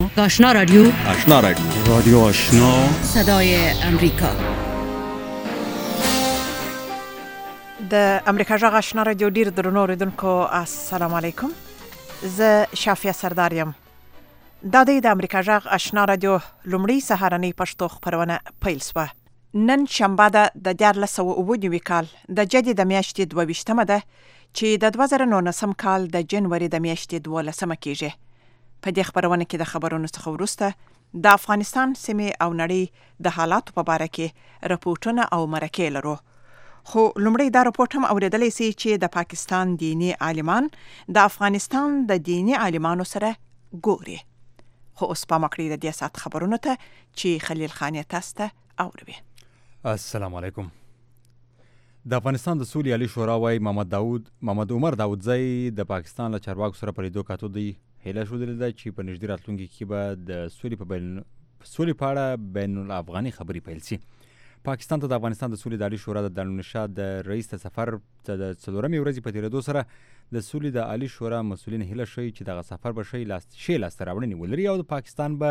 آشنا رادیو رادیو آشنا صدای امریکا. د امریکا جغ آشنا رادیو ډیر درنو اوریدونکو السلام علیکم. زه شافیه سردار یم. دا د امریکا جغ آشنا رادیو لومړی سهارنۍ پښتو خپرونه پیل شوه. نن شنبه ده د 2009 کال د جدي د میاشتې 22مه ده چې د 2019 کال د جنوري د میاشتې 12مه کېږي. په دې خبرونه کې د خبرونو څخه وروسته د افغانستان سیمې او نړۍ د حالاتو په اړه کې راپورټونه او مرکې لرو. خو لومړی دا راپورټ هم اوریدلی سي چې د پاکستان دینی عالمان د افغانستان د دینی عالمانو سره ګوري. خو اوس پام وکړئ د دې ساعت خبرونو ته چې خلیل خان یې تاسو ته اوروي. السلام علیکم. د افغانستان د سولې عالی شورا وايي محمد عمر داودزی د پاکستان له چارواکو سره په لیدو کاتو دی هیله ښودلې ده چې په نږدې راتلونکي کې به د سولې په اړه بین الافغاني خبرې پیل شي. پاکستان ته د افغانستان د سولې د عالی شورا د دارالنشا د رئیس د سفر د 4مې ورځې په تېرېدو سره د سولې د عالی شورا مسؤلین هیله ښیي چې دغه سفر به ښې لاسته راوړنې ولري او د پاکستان به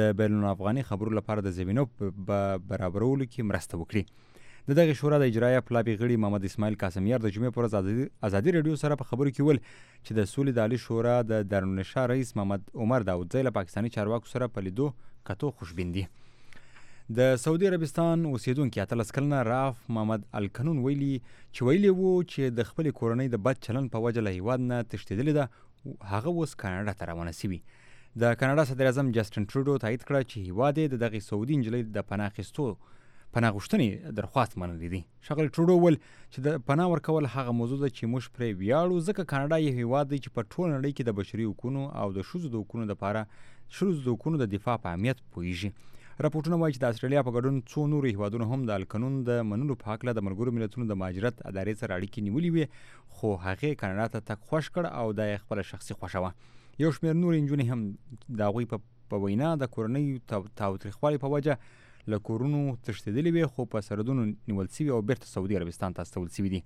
د بین الافغاني خبرو لپاره د زمینو برابرولو کې مرسته وکړي. د دغه شورا د اجرایه پلابي غړي محمد اسماعیل قاسمیار د جمعې پر ورځ ازادي رادیو سره په خبرو کې ویل چې د سولې د عالی شورا د دارالنشا رئیس محمد عمر داودزی له پاکستاني چارواکو سره په لیدو کتو خوشبین دي. د سعودي عربستان اوسیدونکي 18 کلنه راف محمد الکنون ویلي وو چې د خپل کورنۍ د بد چلن په وجه له هیواد نه تښتېدلې ده. هغه اوس کاناډا ته روانه شوي. د کاناډا صدر اعظم جسټن ټروډو تایید کړه چې هیواد یې د دغې سعودي نجلۍ د پناه غوښتنې درخواست منلی دی. ښاغلي ټروډو وویل چې د پناه ورکول هغه موضوع ده چې موږ پرې ویاړو ځکه کاناډا یو هیواد دی چې په ټوله نړۍ کې د بشري حقونو او د ښځو د حقونو د دفاع په اهمیت پوهیږي. راپورټونه وایي چې د استرالیا په ګډون څو نورو هیوادونو هم د القانون د منلو په هکله د ملګرو ملتونو د مهاجرت ادارې سره اړیکې نیولې وې، خو هغې کاناډا ته تګ خوښ کړ او دا یې خپله شخصي خوښه وه. یو شمېر نورې نجونې هم د هغوی په وینا د کورنۍ تاوتریخوالي په وجه له کورونو تښتېدلې وې، خو په سرحدونو نیول سوي او بیرته سعودي عربستان ته استول سوي دي.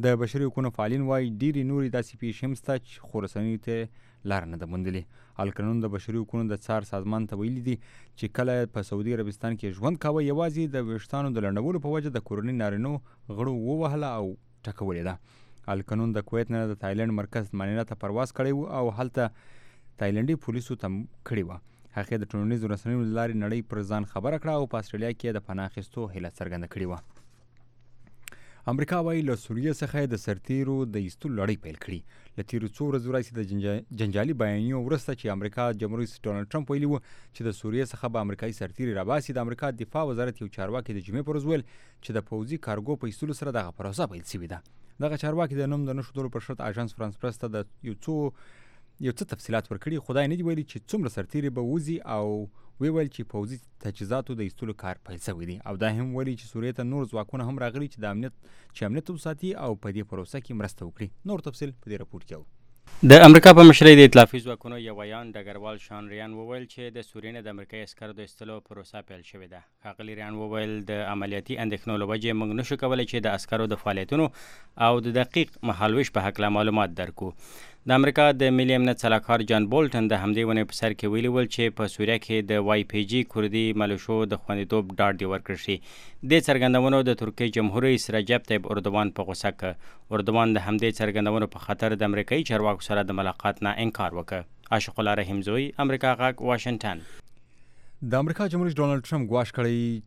د بشري حقونو فعالین وایي ډېرې نورې داسې پیښې هم شته خو رسنیو ته لاره نه ده موندلې. القانون د بشري حقونو د څار سازمان ته ویلي دي چې کله په سعودي عربستان کې ژوند کاوه یوازې د ویښتانو د لنډولو په وجه د کورنۍ نارینو غړو ووهله او ټکولې ده. القانون د کویت نه د تایلنډ مرکز مانیلا ته پرواز کړی و او هلته تایلنډي پولیسو ته کړې وه. هغې د ټولنیزو رسنیو له لارې نړۍ پر ځان خبره کړه او په استرالیا کې د پناه اخیستو هیله څرګنده کړې وه. امریکا وایي له سوریې څخه د سرتیرو د ایستلو لړۍ پیل کړي. له تیرو څو ورځو راهیسې د جنجالي بیانیو وروسته چې امریکا جمهور رئیس ډونالډ ټرمپ ویلي و چې د سوریې څخه به امریکایي سرتیري راباسي، د امریکا دفاع وزارت یو چارواکي د جمعې پر ورځ ویل چې د پوځي کارګو په ایستلو سره دغه پروسه پیل شوې ده. دغه چارواکي د نوم د نه ښودلو پر شرط اژانس فرانس پرس ته د یو څه تفصیلات ورکړي. خدای نه دی ویلي چې څومره سرتیري به وځي او ویل چې پوځي تجهیزاتو د ایستلو کار پیل شوی دی او دا هم ویلي چې سوریې ته نور ځواکونه هم راغلي چې امنیت وساتي او په دې پروسه کې مرسته وکړي. نور تفصیل په دې راپورټ کې د امریکا په مشرۍ د ائتلافي ځواکونو یو ویان ډګروال شان ریان وویل چې د سوریې نه د امریکایي عسکرو د ایستلو پروسه پیل شوې ده. ښاغلي ریان وویل د عملیاتي اندېښنو له وجې موږ نشو کولی چې د عسکرو د فعالیتونو او د دقیق مهالویش په هکله معلومات درکو. د امریکا د ملي امنیت سلاکار جان بولټن د همدې ونې په سر کې ویلي ول چې په سوریه کې د وای پی جي کردي ملیشو د خوندیتوب ډاډ دې ورکړل شي. دې څرګندونو د ترکیې جمهور رئیس رجب طیب اردوان په غوسه کړ. اردوان د همدې څرګندونو په خاطر د امریکایي چارواکو سره د ملاقات نه انکار وکړ. عاشق الله رحیم زوی، امریکا غږ، واشنگټن. د امریکا جمهور رئیس ډونالډ ټرمپ ګواښ کړی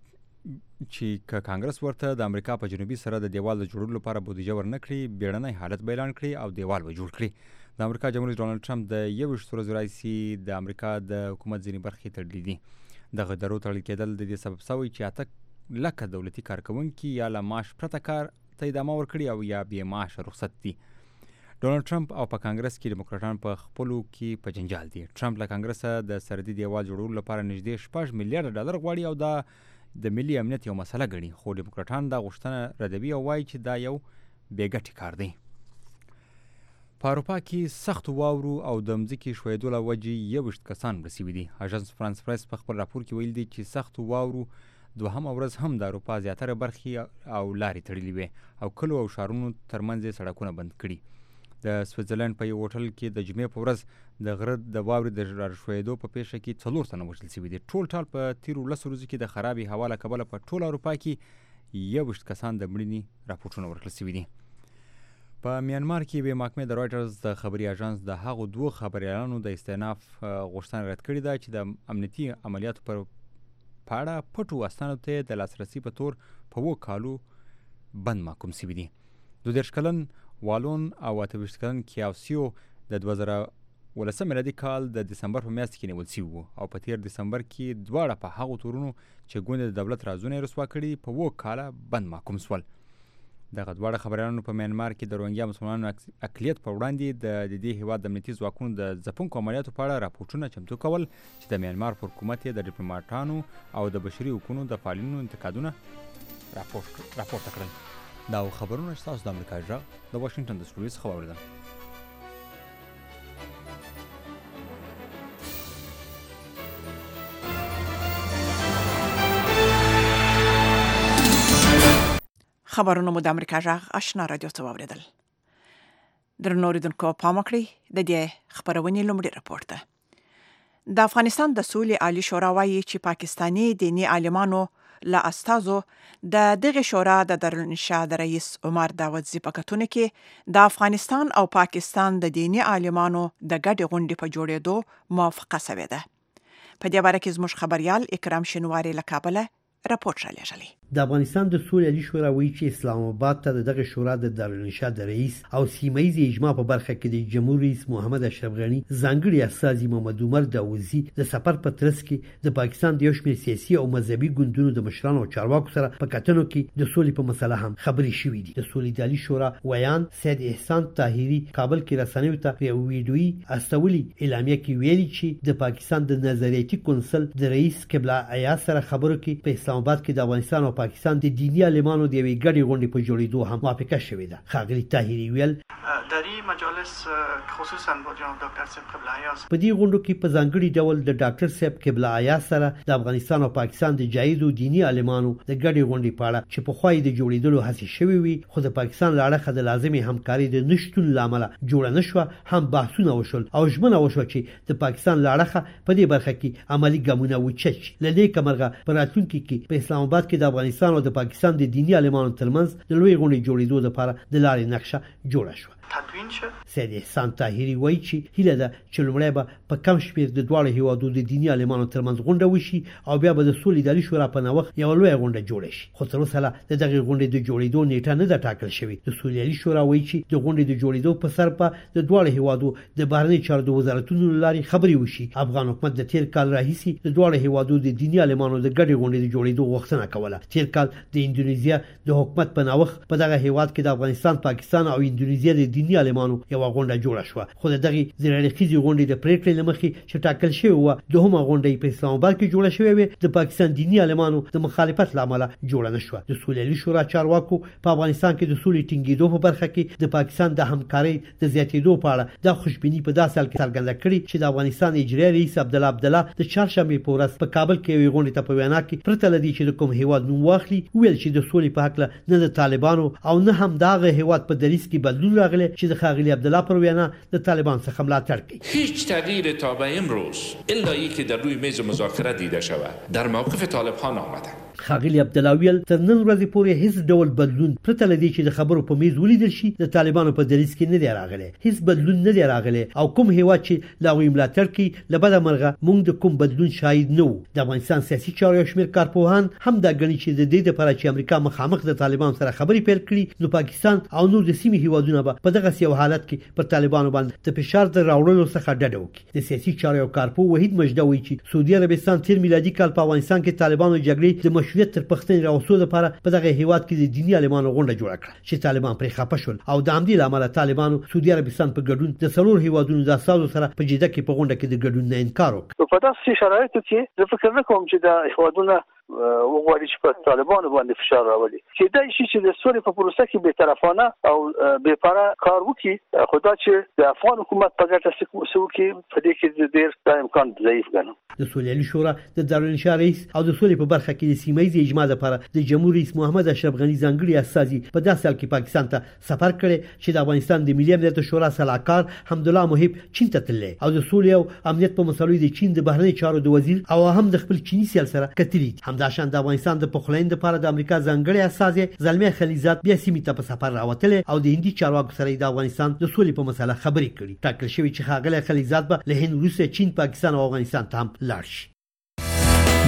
چې که کانګرس ورته د امریکا په جنوبي سره د دیوال د جوړولو لپاره بودیجه ورنکړي، بیړنی حالت به اعلان کړي او دیوال به جوړ کړي. د امریکا جمهور رئیس ډونالډ ټرمپ د 21 ورځو راهیسې د امریکا د حکومت ځینې برخې تړلې دي. دغه درو تړل کېدل د دې سبب شوی چې 8 لکه دولتي کارکوونکي یا له معاش پرته کار ته ادامه ورکړي او یا بې معاشه رخصت دي. ډونالډ ټرمپ او په کانګرس کې ډیموکراټان په خپلو کې په جنجال دي. ټرمپ له کانګرسه د سرحدي دیوال جوړولو لپاره نږدې 6 میلیارډ ډالر غواړي او دا د ملي امنیت یو مسله ګڼي، خو ډیموکراټان دا غوښتنه ردوي او وایي چې دا یو بې ګټې کار دی. په اروپا کې سختو واورو او د مځکې ښویېدو له وجې 21 کسان مړه شوي دي. اژانس فرانس پرس په خپل راپور کې ویلي دي چې سختو واورو دوهمه ورځ هم د اروپا زیاتره برخې او لارې تړلې وې او کلو او ښارونو ترمنځ یې سړکونه بند کړي. د سویټزرلند په یو هوټل کې د جمعې په ورځ د غره د واورې د راښویېدو په پیښه کې 4 تنه وژل شوي دي. ټول ټال په تیرو 10 ورځو کې د خرابې هوا له کبله په ټول اروپا کې 21 کسان د مړینې راپورټونه ورکړل شوي دي. په میانمار کې به محکمې د رایټرز د خبري اژانس د هغو 2 خبريالانو د استئناف غوښتنه رد کړې ده چې د امنیتي عملیاتو پر پاړه پټو اسنادو ته د لاسرسي په تور په 2 کالو بند محکوم شوي دي. 22 کلن والون او 28 کلن کیاوسیو د 2019 میلادي کال د دسمبر په میاشت کې نیول شوي وو او په تیر دسمبر کې دواړه په هغو تورونو چې ګوند د دولت رازونه رسوا کړي په 2 کاله بند محکوم شول. دغه دواړه خبريالانو په میانمار کې د روهینګیا مسلمانانو اقلیت په وړاندې د دې هیواد د امنیتي ځواکونو د ځپونکو عملیاتو په اړه راپورټونه چمتو کول چې د میانمار پر حکومت د ډیپلوماټانو او د بشري حقوقو د فعالینو انتقادونه راپورته کړل. دا خبرونه چې تاسو د امریکا غږ د واشنگټن د سټوډیو څخه واوریدل. خبرونه مو د امریکا غږ آشنا رادیو ته واوریدل. درنو اوریدونکو پام وکړئ د دې خبرونې لومړی راپور ده. د افغانستان د سولې عالی شورا وایي چې پاکستاني دیني عالمانو له استازو د دغه شورا د دارالانشا د رئیس عمر داودزي په کتونه کې د افغانستان او پاکستان د دیني عالمانو د ګډې غونډې په جوړېدو موافقه شوې ده. په دې باره کې زموږ خبريال اکرام شینواری له کابل راپورټ رالیږلی. د افغانستان د سولې عالی شورا وایي چې اسلام آباد ته دغه شورا د دارالانشا د رئیس او سیمه‌یز اجماع په برخه کې د جمهور رئیس محمد اشرف غنی ځانګړي استازي محمد عمر داودزي د سفر په ترڅ کې د پاکستان د یو شمېر سیاسي او مذهبي ګوندونو د مشرانو او چارواکو سره په کتنو کې د سولې په مسله هم خبرې شوې دي. د سولې عالی شورا ویان سید احسان طاهری کابل کې رسنیو ته په ویډیویي استولي اعلامیه کې ویلي چې د پاکستان د نظریاتي کونسل د رئیس قبله ایا سره خبرو کې په اسلام آباد کې د افغانستان او پاکستان د دیني عالمانو د یوې ګډې غونډې په جوړېدو هم موافقه شوې ده. ښاغلي طاهري ویل در این مجالس خصوصا با جناب دکتر صاحب قبله ایاز په دې غونډو کې په ځانګړي ډول د ډاکټر صاحب قبله ایاز سره د افغانستان او پاکستان د جایدو دیني عالمانو د ګډې غونډې په اړه چې په خوای د جوړېدلو هڅې شوې وي خو د پاکستان لاړه د لازمي همکاري د نشټون لامل جوړ نه شو هم بحثونه وشول او ژمنه وشو چې د پاکستان لاړه په دې برخه کې عملی ګامونه وچت لدې کمرغه پر راتلونکي کې په اسلام آباد کې د افغانستان او د پاکستان د دیني عالمانو ترمنځ د لوی غونډې جوړېدو لپاره د لارې نقشه جوړه شوه. تدوین شد. سید احسان طاهری وایي چې هیله ده چې لومړی به په کم شمېر د دواړو هیوادو د دیني عالمانو ترمنځ غونډه وشي او بیا به د سولې د عالي شورا په نوښت یوه لویه غونډه جوړه شي. خو تر اوسه د دغې غونډې د جوړېدو نیټه نه ده ټاکل شوې. د سولې عالي شورا وایي چې د غونډې د جوړېدو په سر په د دواړو هیوادو د بهرنۍ چارو د وزارتونو له لارې خبرې وشي. افغان حکومت د تیر کال راهیسې د دواړو هیوادو د دیني عالمانو د ګډې غونډې د جوړېدو غوښتنه کوله. تیر کال د اندونیزیا د حکومت په نوښت په دغه هیواد کې د افغانستان، پاکستان او اندونیزیا د دیني عالمانو یو غونډه جوړه شو. خو دغه زیرلخیزي غونډې د پریکړې لمخې چې ټاکل شوی و دوهمه غونډه په اسلام آباد کې جوړه شوې و د پاکستان دیني عالمانو د مخالفت لامل جوړه نشو. د سولې عالی شورا چارواکو په افغانستان کې د سولې ټینګېدو په برخه کې د پاکستان د همکارۍ د زیاتېدو په اړه د خوشبینی په داسې حال کې څرګنده کړې چې د افغانستان اجرایي رئیس عبدالله د چهارشنبه په ورځ په کابل کې یوه غونډه ته په وینا کې پرته لدی چې د کوم هیواد نوم واخلي ویل چې د سولې په حق نه د طالبانو او نه هم دغه هیواد په دریس کې بدلون راغلی چې د خاغلی عبدالله پر وینا د طالبان څخه ملاتړ کوي. هیچ تغییر تا به امروز الا اینکه در روی میز مذاکره دیده شود در موقف طالبان آمده. خاغلی عبدالله ویل تر نن ورځې پورې هیڅ ډول بدلون پرته لدی چې د خبرو په میز ولیدل شي د طالبانو په دریس کې نه دی راغلی. هیڅ بدلون نه دی راغلی او کوم هیواد چې لا وی ملاتړ کوي لبده مرغه مونږ د کوم بدلون شاهد نه وو. د افغانستان سیاسي چارو شمیر کارپوهان هم دا غني چې د دې لپاره چې امریکا مخامخ د طالبان سره خبرې پیل کړي نو پاکستان او نور د سیمې هیوادونه به په دغه یو حالت کې پر طالبانو باندې د فشار د راوړلو څخه ډډه وکړي. د سیاسي چارو کارپو وحید مجده وایي چې سعودي عربستان تیر میلادي کال په افغانستان کې طالبانو جګړې د مشروعیت تر پښتنې راوستو لپاره په دغه هیواد کې د دیني عالمانو غونډه جوړه کړه چې طالبان پرې خپه شول او د همدې لامل طالبانو سعودي عربستان په ګډون د څلور هیوادونو د اساسو سره په جده کې په غونډه کې د ګډون نه انکار وکړ. په داسې شرایطو کې زه فکر نه کوم چې د هیوادونو وغواړي چې په طالبانو باندې فشار راولي چې دا شي چې د سولې په پروسه کې به طرفانه او بې پاره کار وکړي خو دا چې د افغان حکومت په ګټه څه وکړي په دې کې ډېر دا امکان ضعیف ګڼم. د سولې شورا د دارالانشا رئیس او د سولې په برخه کې د سیمایي اجماع لپاره د جمهور رئیس محمد اشرف غني ځانګړي استازي په داسې حال کې پاکستان ته سفر کړی چې د افغانستان د ملي امنیت شورا سلاکار حمدالله محب چین ته تللی او د سولې او امنیت په مسلو د چین د بهرنی چارو د وزیر او هم د خپل چینی سیال سره کتلی. همداشان د افغانستان د پخلاین لپاره د امریکا ځانګړي استازي زلمي خلیزات بیا سیمې ته په سفر راوتل او د هندي چارواکو سره د افغانستان د سولې په مسله خبرې کړې. ټاکل شوی چې ښاغلی خلیزات به له هند وروسته چین، پاکستان او افغانستان ته هم لاړ شي.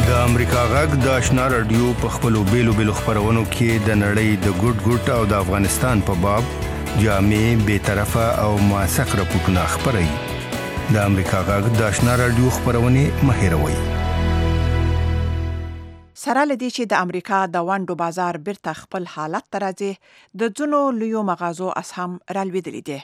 د امریکا غږ د آشنا رادیو په خپلو بیلو خبرونو کې د نړۍ د ګډ او د افغانستان په باب جامع، بی‌طرفه او موثق راپورټونه خپروي. د امریکا غږ د آشنا رادیو خبرونه مه هېروئ. سره لدی چې د امریکا د وانډو بازار بیرته خپل حالت ته راځي د ځینو لویو مغازو اسهم رالوېدلي دي.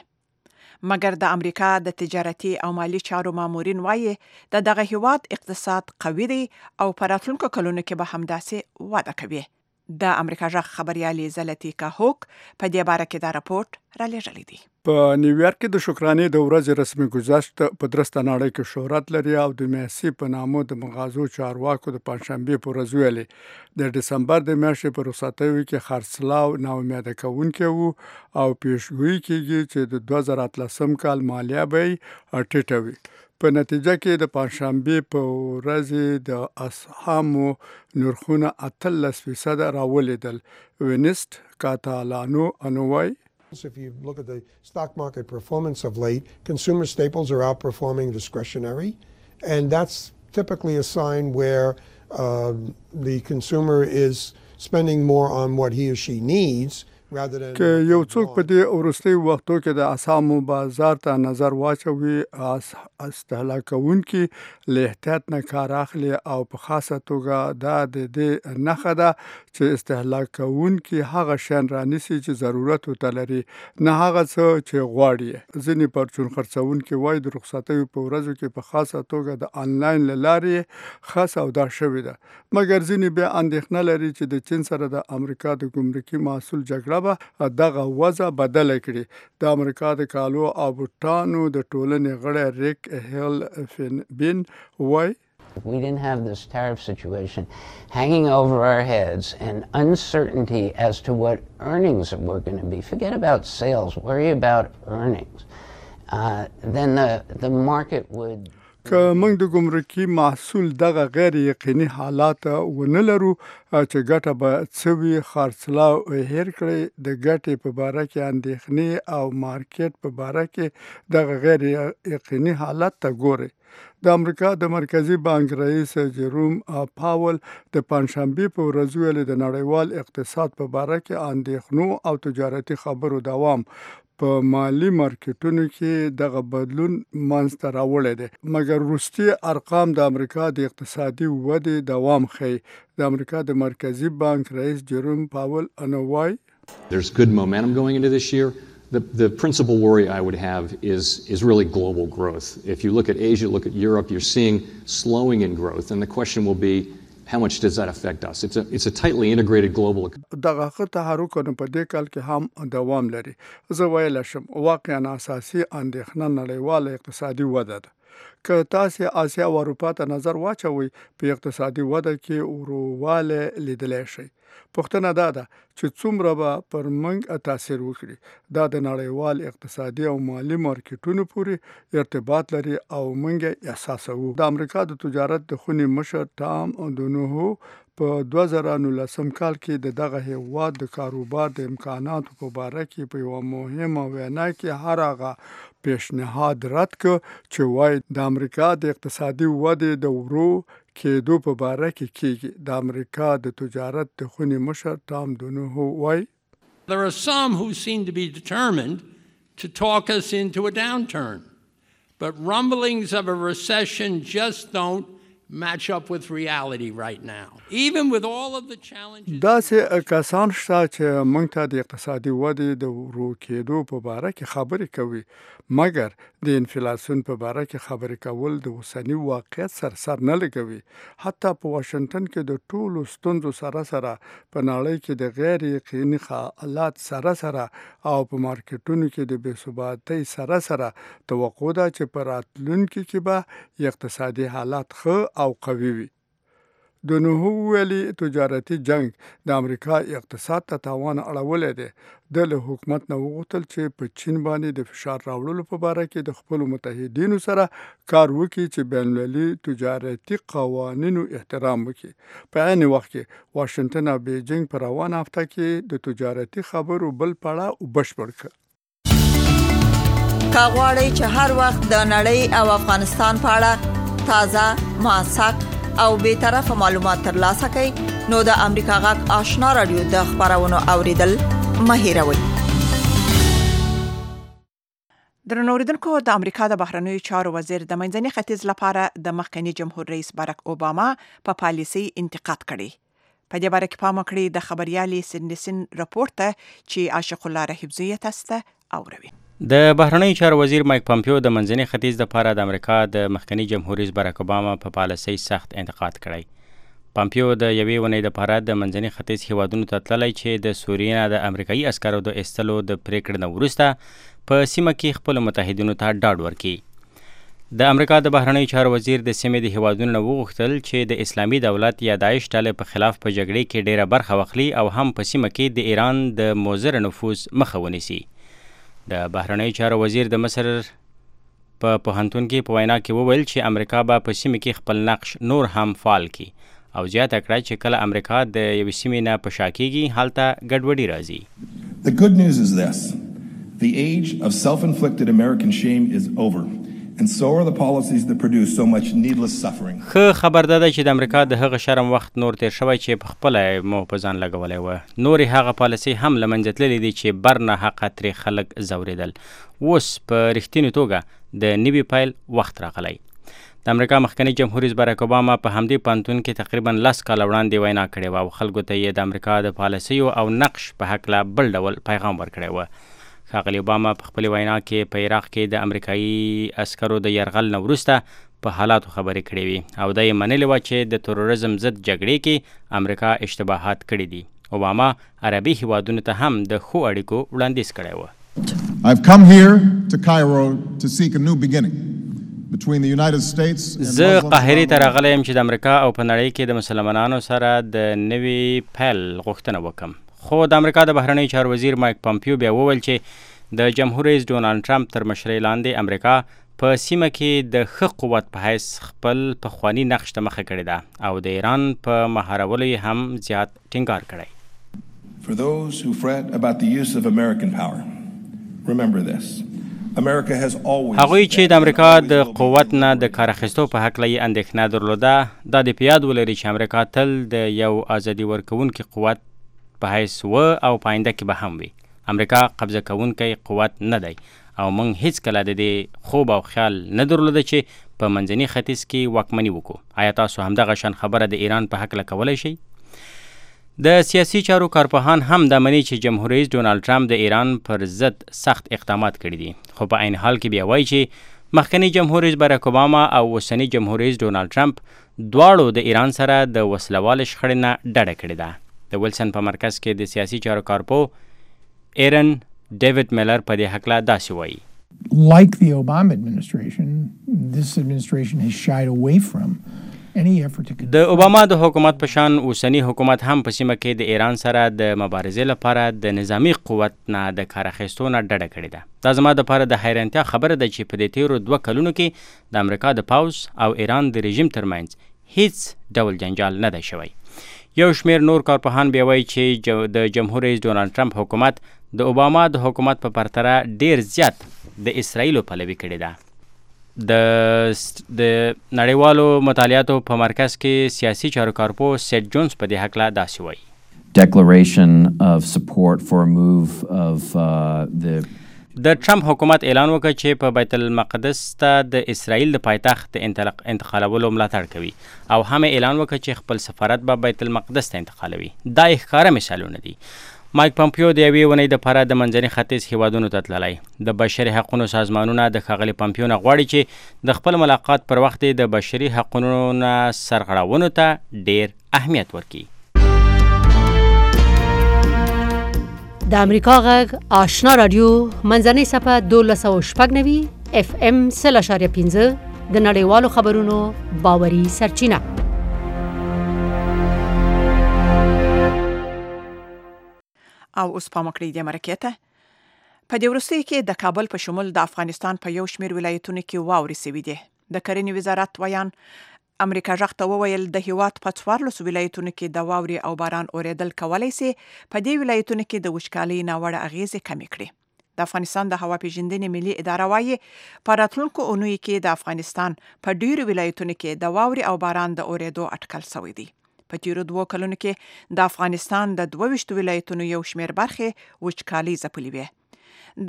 مګر د امریکا د تجارتي او مالی چارو مامورین وایي د دغه هیواد اقتصاد قوي دی او په راتلونکو کلونو کې به همداسې وده کوي. د امریکا غږ خبريالي زلتیکا هوک په دې باره کې دا راپورټ را لېږلی دی. په نیویارک کې د شکرانې د ورځې رسمي گذشت په درسته نړۍ کې شهرت لري او د میاسي په نامو د مغازو چارواکو د پنځشنبه په ورځ ویلي د دسمبر د میاشتې په رخصتیو کې خرڅلاو ناامیده کوونکی وو او پیشګویي کېږي چې د 2013 کال مالیه به ټیټه وي. په نتیجه کې د پنځشنبه په ورځ د اسهامو نرخونه 13% راولېدل. وینست کاتالانو انوای If you look at the stock market performance of late, consumer staples are outperforming discretionary, and that's typically a sign where the consumer is spending more on what he or she needs. که یو څوک په دې وروستي وختو کې د اسهامو بازار ته نظر واچوي استهلاکونکي له احتیاط نه کار اخلي او په خاصه توګه دا د دې نښه ده چې استهلاکونکي هغه شیان رانیسي چې ضرورت ورته لري نه هغه څه چې غواړي. ځینې پرچون خرڅونکي وایي د رخصتیو په ورځو کې په خاصه توګه د آنلاین له لارې ښه سودا شوې ده. مګر ځینې بیا اندېښنه لري چې د چین سره د امریکا د ګمرکي محصول جګړه دغه وضع بدله کړي. د امریکا د کالو او بوټانو د ټولنې غړی ریک هیل فین وای If we didn't have this tariff situation hanging over our heads and uncertainty as to what earnings were going to be, forget about sales, worry about earnings, then the market would که موږ د ګمرکي محصول دغه غیر یقیني حالات ونه لرو چې ګټه به څه وي خرڅلاو هیر کړي د ګټې په باره کې اندېښنې او مارکیټ په باره کې دغه غیر یقیني حالات ته ګوري. د امریکا د مرکزی بانک رئیس جروم پاول د پنځشنبه په ورځ ویل د نړیوال اقتصاد په باره کې اندېښنو او تجارتي خبرو دوام په مالی مارکیټونو کې دغه بدلون منځته راوړی دی. مګر وروستي ارقام د امریکا د اقتصادي ودې دوام ښیي. د امریکا د مرکزی بانک رئیس جروم پاول انوای There's good momentum going into this year. The principal worry I would have is really global growth. If you look at Asia, look at Europe, you're seeing slowing in growth, and the question will be how much does that affect us? It's a tightly integrated global economy. دغه تحرکونه په دې کال کې هم دوام لري. زه ویل شم واقعا اساسي اندېښنه نړیواله اقتصادي وده ده. که تاسو آسیا او اروپا ته نظر واچوي په اقتصادي وده کې ورواله لیدلی شي. پوښتنه دا ده چې څومره به پر موږ تاثیر وکړي. دا د نړیوال اقتصادي او مالی مارکیټونو پورې ارتباط لري او موږ احساسوو. د امریکا د تجارت د خونې مشر ټام دونوهو په 2019 کال کې دغه هیواد د کاروبار د امکاناتو په باره کې په یو مهمه وینا کې هر هغه پیشنهاد رد کړ چې وایي د امریکا د اقتصادي ودې د ورو کېدو په باره کې کېږي. د امریکا د تجارت د خونې مشر ټام دونوهو وایي There are some who seem to be determined to talk us into a downturn, but rumblings of a recession just don't match up with reality right now. Even with all of the challenges. داسې کسان شته چې موږ ته د اقتصادي ودې د ورو کېدو په باره کې خبرې کوي، مګر د انفلاسیون په باره کې خبرې کول د اوسني واقعیت سر نه لګوي. حتی په واشنگټن کې د ټولو ستونزو سره په نړۍ کې د غیر یقیني حالات سره او په مارکیټونو کې د بې ثباتۍ سره توقع ده چې په راتلونکي کې به اقتصادي حالات ښه او قوي وي. د نوحو ویلي تجارتي جنگ د امریکا اقتصاد ته تاوان اړولی دی. د له حکومت نه وغوښتل چې په چین باندې د فشار راوړلو په باره کې د خپلو متحدینو سره کار وکړي چې بین المللي تجارتي قوانینو احترام وکړي. په عین وخت کې واشنگټن او بیجینګ په روانه هفته کې د تجارتي خبرو بل پړاو بشپړ کړ. که غواړئ چې هر وخت د نړۍ او افغانستان په اړه تازه، موثق او بی‌طرفه معلومات ترلاسه کړئ نو د امریکا غږ آشنا رادیو د خبرونو اوریدل مه هېروئ. درنو اوریدونکو، د امریکا د بهرنیو چارو وزیر د منځني ختیځ لپاره د مخکنی جمهور رئیس باراک اوباما په پالیسي انتقاد کړی. په دې باره کې پام وکړئ د خبريالې سندسن راپورټ ته چې عاشق الله رحیبزی تاسو ته اوروي. د بهرنیو چارو وزیر مایک پامپیو د منځني ختیځ لپاره د امریکا د مخکنی جمهور رئیس باراک اوباما په پالیسۍ سخت انتقاد کړی. پامپیو د یوې ونې لپاره د منځني ختیځ هیوادونو ته تللی چې د سوریې نه د امریکایي عسکرو د ایستلو د پریکړې نه وروسته په سیمه کې خپلو متحدینو ته ډاډ ورکړي. د امریکا د بهرنیو چارو وزیر د سیمې د هیوادونو نه وغوښتل چې د اسلامي دولت یا داعش ډلې په خلاف په جګړې کې ډیره برخه واخلي او هم په سیمه کې د ایران د مضر نفوذ مخه ونیسي. د بهرنیو چارو وزیر د مصر په پوهنتون کې په وینا کې وویل چې امریکا به په سیمه کې خپل نقش نور هم فعال کړي او زیاته کړه چې کله امریکا د یوې سیمې نه په شا کېږي هلته ګډوډي راځي. The good news is this. The age of self-inflicted American shame is over. And so are the policies that produce so much needless suffering. ښه خبر ده چې د امریکا د هغه شرم وخت نور تیر شوی چې په خپله مو په ځان لګولی و. نورې هغه پالیسۍ هم له منځه تللې دي چې بر نه حقه ترې خلک ځورېدل. اوس په رښتینې توګه د نوي پیل وخت راغلی. د امریکا مخکنی جمهور رئیس باراک اوباما په همدې پوهنتون کې تقریبا 10 کاله وړاندې وینا کړې وه او خلکو ته یې د امریکا د پالیسیو او نقش په هکله بل ډول پیغام ورکړی و. ښاغلي اوباما په خپلې وینا کې په عراق کې د امریکایي عسکرو د یرغل نه وروسته په حالاتو خبرې کړې وي او دا یې منلې وه چې د تروریزم ضد جګړې کې امریکا اشتباهات کړي دي. اوباما عربي هیوادونو ته هم د ښو اړیکو وړاندیز کړی و. I've come here to Cairo to seek a new beginning between the United States and زه قاهرې ته راغلی یم چې د امریکا او په نړۍ کې د مسلمانانو سره د نوي پیل غوښتنه وکړم. خو د امریکا د بهرنیو چارو وزیر مایک پامپیو بیا وویل چې د جمهور رئیس ډونالډ ټرمپ تر مشرۍ لاندې امریکا په سیمه کې د ښه قوت په حیث خپل پخواني نقش ته مخه کړې ده او د ایران په مهارولو یې هم زیات ټینګار کړی. For those who fret about the use of American power, remember this. America has always هغوی چې د امریکا د قوت نه د کار اخیستو په هکله یې اندېښنه درلوده دا د په یاد ولري چې امریکا تل د یو ازادي ورکوونکي قوت په حیث و او په آینده کې به هم وي. امریکا قبضه کوونکی قوت نه دی او موږ هیڅکله د دې خوب او خیال نه درلوده چې په منځني ختیځ کې واکمني وکړو. آیا تاسو همدغه شان خبره د ایران په هکله کولی شئ؟ د سیاسي چارو کارپوهان هم دا مني چې جمهور رئیس ډونالډ ټرمپ د ایران پر ضد سخت اقدامات کړي دي، خو په عین حال کې بیا وایي چې مخکنی جمهور رئیس باراک اوباما او اوسنی جمهور رئیس ډونالډ ټرمپ دواړو د ایران سره د وسلوالې شخړې نه ډډه کړې ده. د ویلسن په مرکز کې د سیاسي چارو کارپو ایرن ډیوډ میلر په دې هکله داسې وایي. Like the Obama administration, this administration has shied away from د اوباما د حکومت په شان اوسنی حکومت هم په سیمه کې د ایران سره د مبارزې لپاره د نظامی قوت نه د کار اخیستو نه ډډه کړې ده. دا زما دپاره د حیرانتیا خبره ده چې په دې تیرو 2 کلونو کې د امریکا د پوځ او ایران د رژیم ترمنځ هیڅ ډول جنجال نه دی شوی. یو شمیر نور کارپوهان بیا وایي چې د جمهور رئیس ډونالډ ټرمپ حکومت د اوباما د حکومت په پرتله ډیر زیات د اسرائیلو پلوي کړې ده. د نړیوالو مطالعاتو په مرکز کې سیاسي چارو کارپو سیټ جونز په دې هکله داسې وایي. Declaration of support for a move of the د ټرمپ حکومت اعلان وکړ چې په بیت المقدس ته د اسرائیل د پایتخت انتقالولو ملاتړ کوي او هم اعلان وکړ چې خپل سفارت به بیت المقدس ته انتقالوي. دا ښکاره مثالونه دي. مایک پمپیو د یوې ونې دپاره د منځني ختیځ هیوادونو ته تللی. د بشري حقونو سازمانونه د ښاغلي پمپیو نه غواړي چې د خپل ملاقات پر وخت د بشري حقونو نه سرغړونو ته ډیر اهمیت ورکړي. د امریکا غږ آشنا رادیو منځنۍ صفحه 1290 FM 0.5 د نړیوالو خبرونو باوري سرچینه. او اوس پام وکړئ د مرکې ته. په دې وروستیو کې د کابل په شمول د افغانستان په یو شمېر ولایتونو کې واورې سوي دي. د کرنې وزارت ویان امریکا غږ ته وویل د هیواد په 14 ولایتونو کې د واورې او باران اورېدل کولی سي په دې ولایتونو کې د وچکالۍ ناوړه اغیزې کمې کړي. د افغانستان د هوا پیژندنې ملي اداره وایي په راتلونکو اونیو کې د افغانستان په ډیرو ولایتونو کې د واورې او باران د اورېدو اټکل شوی دی. په تیرو 2 کلونو کې د افغانستان د 22 ولایتونو یو شمېر برخې وچکالۍ ځپلې وې.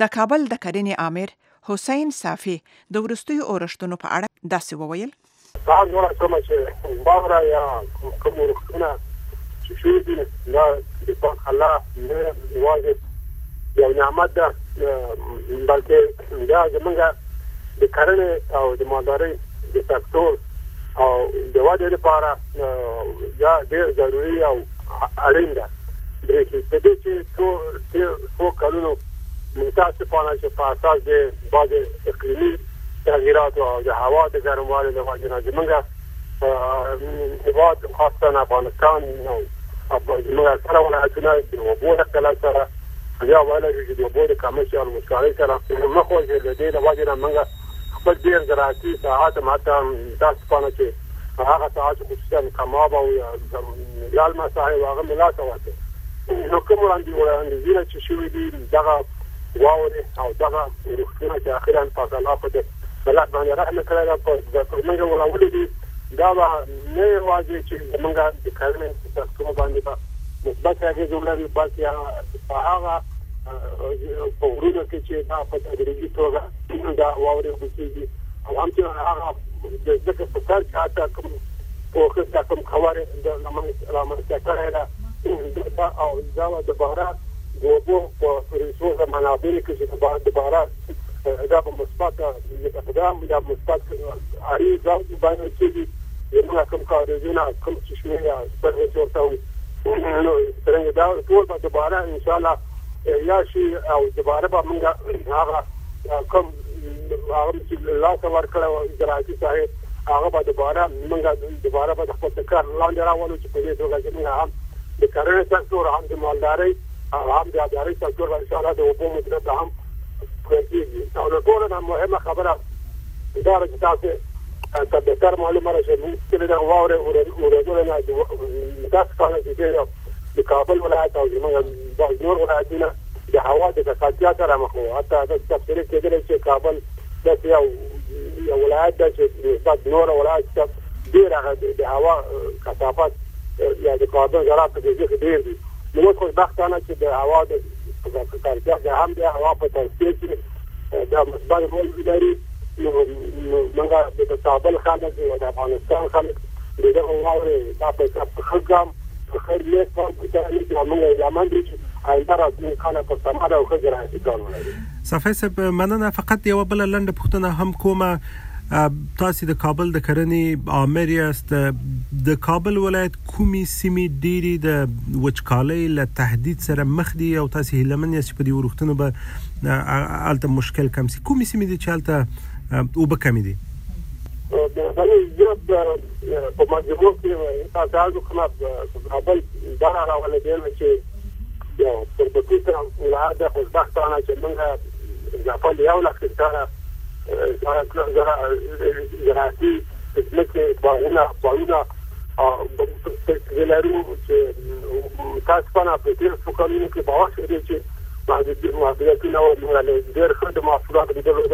د کابل د کرنې امیر حسین صافي د وروستیو اورښتونو په اړه داسې وویل. هغه نور کومه چې باغره یا کوم ورختونه چې شوي دي دا د پاک الله نه واجب یو نعمت ده، بلکې دا زمونږ د کرنې او د مالدارۍ د سکتور او د ودې لپاره یا ډېر ضروري او اړین ده. د دې چې څو کلونو متاسفانه چې په اساس د بعضې اقلیمي تغییراتو او د هوا د ګرموالي له وجې نه زمونږ هېواد خاصتا افغانستان او زمونږ اکثره ولایتونه د اوبو د قلت سره یا ویلی شو چې د اوبو د کمښت یا وچکالۍ سره مخ وځي. د دې له وجې نه موږ خپل ډېر زراعتي ساحات هم حتی متاسفانه چې هغه ساحات خصوصا کماب او لالمه ساحې هغه مې لاسه واچوي. نو کوم وړاندیزونه چې شوي دي دغه واورې او دغه روغتونه چې اخرا پاک الله په ملت باندې رحم کړی ده په موږ وراولې دي، دا به نه یوازې چې زموږ د کرنې په سکتور باندې به مثبت اغېز ولري، بلکې په هغه په غرونو کې چې دا په تدریجي توګه دا واورې وکړي او هم چې هغه د ځمکې په سر کې حتی کوم پوښښ کوم خبرې د رامنځته کړی ده او دا د باران د اوبو په ریسورس منابعو کې چې د باران دا په مثبت اقدام یا مثبت اړیز باندې چې زموږ کوم کاروبارونه کوم چې شوي سرویس ورته وي نو څنګه دا ټول به دوباره انشاءالله یا شي او دوباره به موږ هغه کوم هغه چې لاسه ورکړی زراعتي ساحې هغه به دوباره موږ دوباره به د خپل کار لاندې راولو چې په دې توګه چې موږ هم د کرنې سکتور هم د مالدارۍ هم د اداري سکتور به انشاءالله د اوبو مدیریت هم کېږي. او له ټولو نه مهمه خبره دا ده چې تاسې ته بهتر معلومه ده چې موږ چې د واورې اورېدلو نه متاسفانه چې د کابل ولایت او زموږ نور ولایتونه د هوا د ککړتیا سره مخ وو. حتی دا تفسیر کېدلی چې کابل داسې یو ولایت ده چې نسبت نور ولایت ته ډېر هغه د هوا کثافت یا د کاربن ذرات په دې کې ډېر دي. نو موږ خوشبختانه چې د هوا د ککړتیا د هم د هوا په توسعه کې دا مثبت رول لري. نو موږ د کابل خلک او د افغانستان خلک د دغه واورې دا په ښه ګام په خیر نیت باندې چې موږ یمن دي چې آینده راتلونکي کاله په سمه او ښه زراعتي کار ولري. صافی صاحب مننه. فقط یوه بله لنډه پوښتنه هم کومه، تاسو د کابل د کرنې امیر یاست، د کابل ولایت کومې سیمې ډېرې د وچکالۍ له تهدید سره مخ دي او تاسو هیلهمن یاست چې په دې وروختونو به هلته مشکل کم شي؟ کومې سیمې دي چې هلته اوبه کمې دي؟ په مجموع کې تاسو کومه کابل دا راولې دی چې یو پر پټه ولایت د خوشبختانه چې موږ ځپل یو لک هکتاره زراعتي ځمکې باغونه لرو چې متاسفانه په تېرو څو کلونو کې باور شوی چې محدودیتونه موږ ډېر ښه د محصولاتو لیدلو د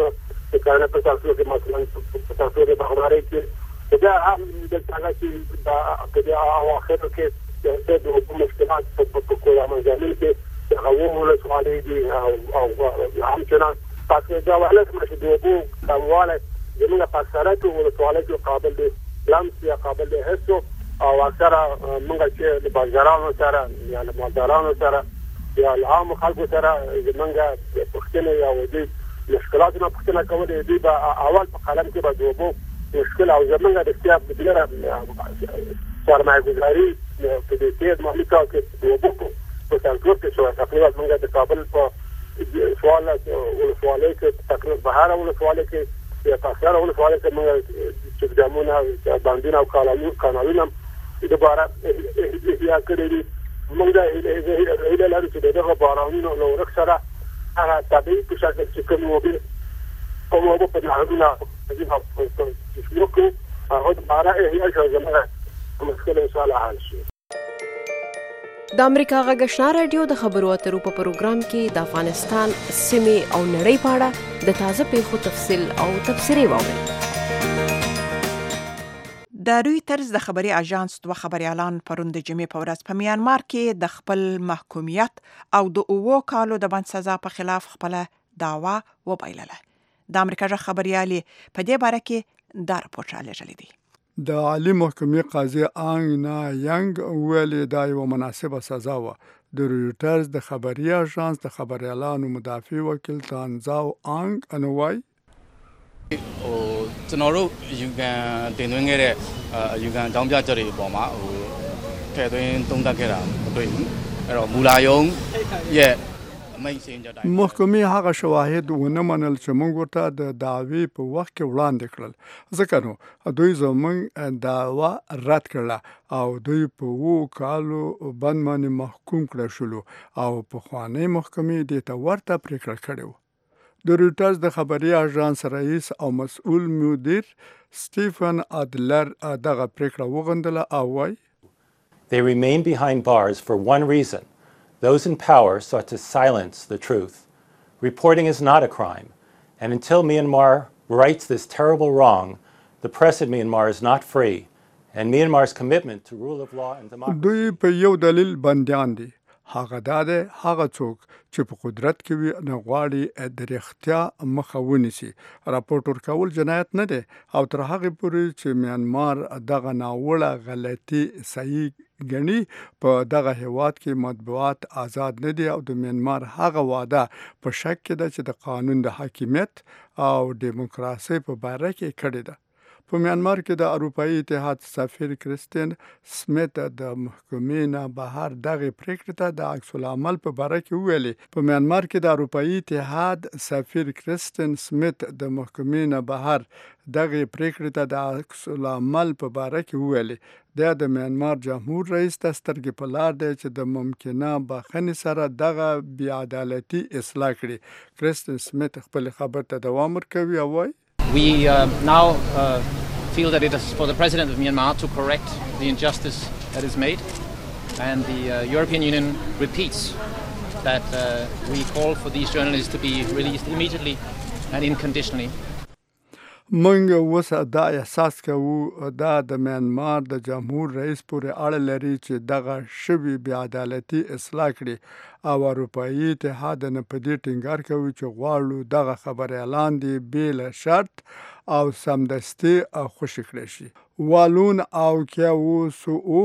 کرنې په سکتور کې مثلا په سکتور د باغدارۍ کې دا هم دلته هغه چې په دې اواخرو کې د اوبو مشکلات په کومه ځای کې د هغو ولسوالۍ دي او همچنان پس دا ولایت مشه د اوبو کموالی زمونږ په اکثریت ولسوالیو کې قابل د لمس یا قابل د حس او اکثره موږ چې د بازارانو سره یا د مالدارانو سره یا له عامو خلکو سره زمونږ پوښتنې یا د مشکلاتونه پوښتنه کولې دوی به اول په قلم کې به د اوبو مشکل او زمونږ د اختیار بدلره سرمایه‌ګذاري په دې کې د مالي کار کې د اوبو په سنټور کې شوی تقریبا موږ د کابل په سوال ولسوالۍ کې تقریبا بهر ولسوالۍ کې یا په اکثره ولسوالۍ کې موږ چې ډامونه باندونه او کانالونه دوباره احیا کړي دي موږ د هیله لرو چې دغه بارانونو له ورک سره هغه طبیعي په شکل چې کوم اوبه په نهرونه شروع کړو هغه دوباره احیا شو زموږ مشکل ان شاء الله حل شي. د امریکا غږ آشنا رادیو د خبرو اترو په پروګرام کې د افغانستان سیمې او نړۍ په اړه د تازه پیښو تفصیل او تبصرې واورئ. د رویټرز د خبري اژانس دوه خبريالان پرون د جمعې په ورځ په میانمار کې د خپل محکومیت او د 9 کالو د بند سزا په خلاف خپل دعوا وبایلله. د امریکا ژغ خبريالي په دې باره کې دا راپور راغلی دی. د عالی محکمې قاضي آنګ نا ینګ ویلي دا یو مناسبه سزا و. د رویټرز د خبري اژانس د خبريالانو مدافع وکیل تانزاو آنګ انوای ကျွန်တော်တို့ယူကန်တင်သွင်းခဲ့တဲ့ယူကန်တောင်းပြချက်တွေအပေါ်မှာထည့်သွင်းသုံးသပ်ခဲ့တာမတွေ့ဘူးအဲ့တော့မူလာယုံရဲ့အမိန့်စင်ကြတိုင်း محکمې هغه شواهد ونه منل چې موږ ورته د دعوی په وخت کې وړاندې کړل ځکه نو دوی زموږ دعوا رد کړله او دوی په 2 کالو بند باندې محکوم کړل شول او په خواني محکمې د ته ورته پریکړه کړې و. د رویټرز د خبري اژانس رئیس او مسؤل مدیر سټیفن ادلر دغه پریکړه وغندله او وايي They remain behind bars for one reason. Those in power sought to silence the truth. Reporting is not a crime, and until Myanmar rights this terrible wrong, the press in Myanmar is not free, and Myanmar's commitment to rule of law and democracy. دوی په یو دلیل بندیان دي. هغه داده هغه څوک چې په قدرت کې وي نه غواړي د رښتیا مخه ونیسي. راپورټ ورکول جنایت نه دی او تر هغه پورې چې میانمار دغه ناوړه غلطي صحیح ګڼي په دغه هیواد کې مطبوعات آزاد نه دي او د میانمار هغه وعده په شک کې ده چې د قانون د حاکمیت او دیموکراسي په باره کې کړې ده. په میانمار کې د اروپאי اتحاد سفیر کریستین سمیت د محکمې نه بهر دغه پریکړه ته د عکس العمل په باره کې ویلي. په میانمار کې د اروپאי اتحاد سفیر کریستین سمیت د محکمې نه بهر دغه پریکړه ته د عکس العمل په باره کې ویلي. د میانمار جمهور رئیس د سترګې په لار دی چې د ممکنه بخښنې سره دغه بې عدالتي اصلاح کړي. کریستین سمیت خپل خبر ته دوام ورکوي او وايي We now feel that it is for the President of Myanmar to correct the injustice that is made, and the European Union repeats that we call for these journalists to be released immediately and unconditionally. منګ وسه دا احساس کوو دا د میانمار د جمهور رئیس پورې اړه لري چې دغه شوی بې عدالتي اصلاح کړي او اروپאי اتحاد نه په دې ټینګار کوي چې غواړو دغه خبره اعلان دی بل شرط او سمدستي خوشی کړی شي. والون او کیاوسو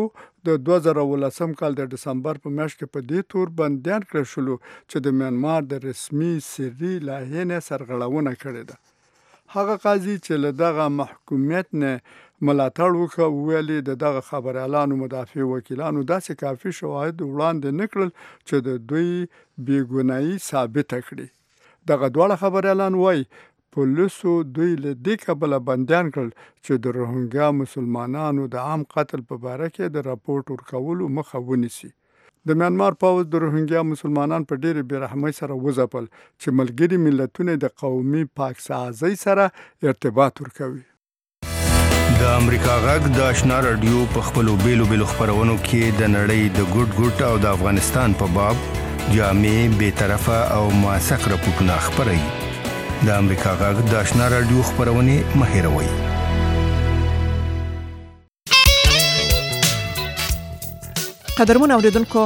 د 2018 کال د دسمبر په میاشت کې په دې تور بندیان کړل شول چې د میانمار د رسمي سری لایحې نه سرغړونه کړې ده. هغه قاضي چې له دغه محکومیت نه ملاتړ وکړ ویلي د دغه خبريالانو مدافع وکیلانو داسې کافي شواهد وړاندې نکړل چې د دوی بیګناهي ثابت کړي. دغه دواړه خبريالان وایي پولیسو دوی له دې کبله بندیان کړل چې د روهینګیا مسلمانانو د عام قتل په باره کې د راپورټ ورکولو مخه ونیسي. د میانمار پوځ د روهینګیا مسلمانان په ډېرې بېرحمۍ سره وځپل چې ملګري ملتونه د قومي پاکسازۍ سره ارتباط ورکوي. د امریکا غږ د آشنا رادیو په خپلو بیلو خپرونو کې د نړۍ د ګوټ او د افغانستان په باب جامع بیطرفه او موثق راپورټونه خپروي. د امریکا غږ د آشنا رادیو خپرونې مه هېروئ. قدرمن اوریدونکو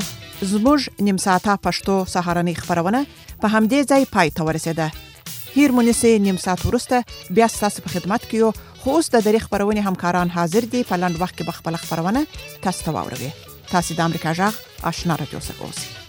زموږ نیم ساعته پښتو سهارنۍ خبرونه په همدې ځای پای ته ورسېده. هیر مونیسه نیم ساعت ورسته بیا تاسو په خدمت کې یو. خو اوس د دری خبرونه همکاران حاضر دي په لاند وخت کې بخپل خبرونه تاسو ته واوروي. تاسو د امریکا جغ آشنا رادیو څخه اوسئ.